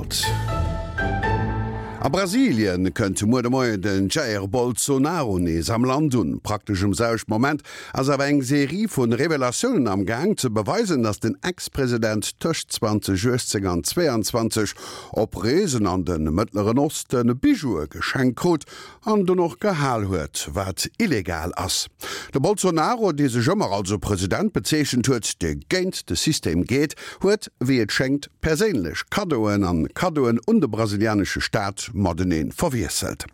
Welt. A Brasilien kënnt muer de Moien den Jair Bolsonaro nees am Land un. Praktesch um selwechten Moment ass awer eng Serie vu Revelatiounen am Gaang ze beweisen, datt den Ex-President tëscht 2018 an 2022 op Reesen an de Mëttleren Oste Bijoue geschenkt krut an dunn och gehal huet, wat illegal ass. De Bolsonaro, dee sech ëmmer als e President bezeechent huet, dee géint de System geet, huet, wéi et schéngt, perséinlech Kaddoen an Kaddoen un de brasilianesche Staat matenee verwiesselt.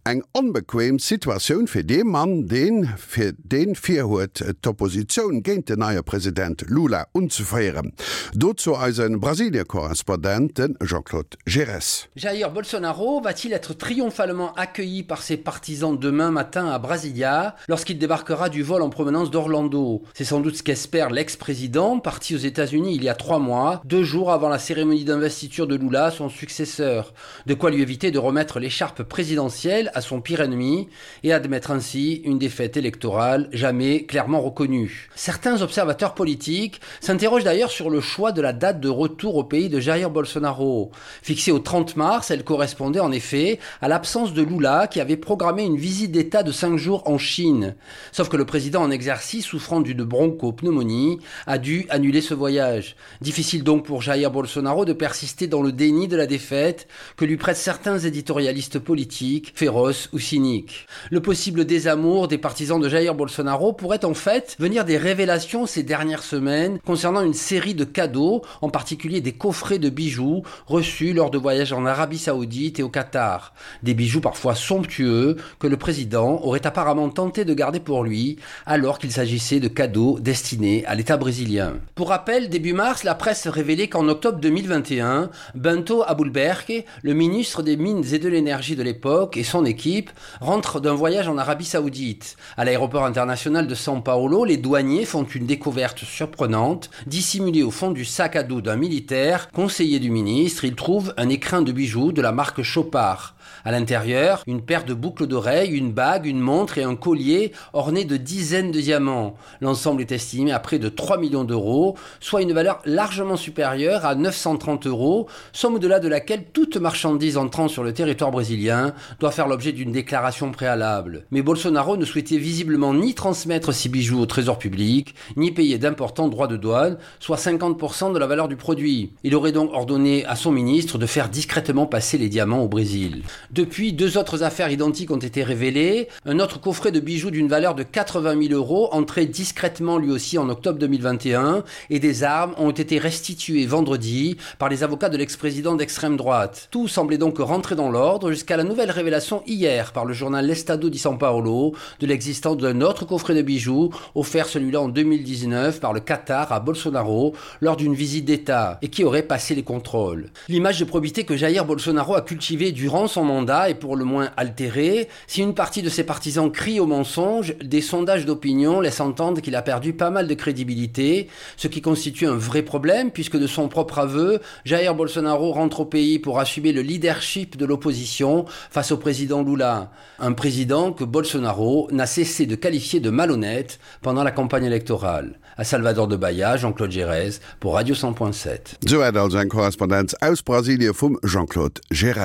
Eng onbequem Situatioun fir dee Mann, deen fir deen virhuet, d'Oppositioun géint den neie President Lula unzeféieren. Dozou eise Brasilie-Korrespondent, de Jean-Claude Giresse. Jair Bolsonaro va-t-il être triomphalement accueilli par ses partisans demain matin à Brasilia lorsqu'il débarquera du vol en provenance d'Orlando C'est sans doute ce qu'espère l'ex-président parti aux États-Unis il y a trois mois, deux jours avant la cérémonie d'investiture de Lula, son successeur. De quoi lui éviter de remettre l'écharpe présidentielle à son pire ennemi et admettre ainsi une défaite électorale jamais clairement reconnue. Certains observateurs politiques s'interrogent d'ailleurs sur le choix de la date de retour au pays de Jair Bolsonaro. Fixée au 30 mars, elle correspondait en effet à l'absence de Lula qui avait programmé une visite d'État de cinq jours en Chine. Sauf que le président en exercice, souffrant d'une bronchopneumonie, a dû annuler ce voyage. Difficile donc pour Jair Bolsonaro de persister dans le déni de la défaite que lui prêtent certains éditorialistes politiques, féroces ou cyniques. Le possible désamour des partisans de Jair Bolsonaro pourrait en fait venir des révélations ces dernières semaines concernant une série de cadeaux, en particulier des coffrets de bijoux reçus lors de voyages en Arabie Saoudite et au Qatar. Des bijoux parfois somptueux que le président aurait apparemment tenté de garder pour lui alors qu'il s'agissait de cadeaux destinés à l'État brésilien. Pour rappel, début mars, la presse révélait qu'en octobre 2021, Bento Aboulberg, le ministre des Mines et de l'énergie de l'époque et son équipe rentrent d'un voyage en Arabie Saoudite. À l'aéroport international de São Paulo, les douaniers font une découverte surprenante. Dissimulée au fond du sac à dos d'un militaire, conseiller du ministre, ils trouvent un écrin de bijoux de la marque Chopard. À l'intérieur, une paire de boucles d'oreilles, une bague, une montre et un collier ornés de dizaines de diamants. L'ensemble est estimé à près de 3 millions d'euros, soit une valeur largement supérieure à 930 euros, somme au-delà de laquelle toute marchandise entrant sur le territoire brésilien doit faire l'objet d'une déclaration préalable. Mais Bolsonaro ne souhaitait visiblement ni transmettre ses bijoux au trésor public, ni payer d'importants droits de douane, soit 50% de la valeur du produit. Il aurait donc ordonné à son ministre de faire discrètement passer les diamants au Brésil. Depuis, deux autres affaires identiques ont été révélées. Un autre coffret de bijoux d'une valeur de 80 000 euros, entré discrètement lui aussi en octobre 2021, et des armes ont été restituées vendredi par les avocats de l'ex-président d'extrême droite. Tout semblait donc rentrer dans l'ordre jusqu'à la nouvelle révélation hier par le journal L'Estado di São Paulo de l'existence d'un autre coffret de bijoux offert celui-là en 2019 par le Qatar à Bolsonaro lors d'une visite d'État et qui aurait passé les contrôles. L'image de probité que Jair Bolsonaro a cultivée durant son mandat est pour le moins altérée. Si une partie de ses partisans crie au mensonge, des sondages d'opinion laissent entendre qu'il a perdu pas mal de crédibilité, ce qui constitue un vrai problème puisque de son propre aveu, Jair Bolsonaro rentre au pays pour assumer le leadership de l'opposition face au président Lula, un président que Bolsonaro n'a cessé de qualifier de malhonnête pendant la campagne électorale. À Salvador de Bahia, Jean-Claude Gérèse pour Radio 100.7. Souwäit also eng Korrespondenz aus Brasilie vum Jean-Claude Gérèse.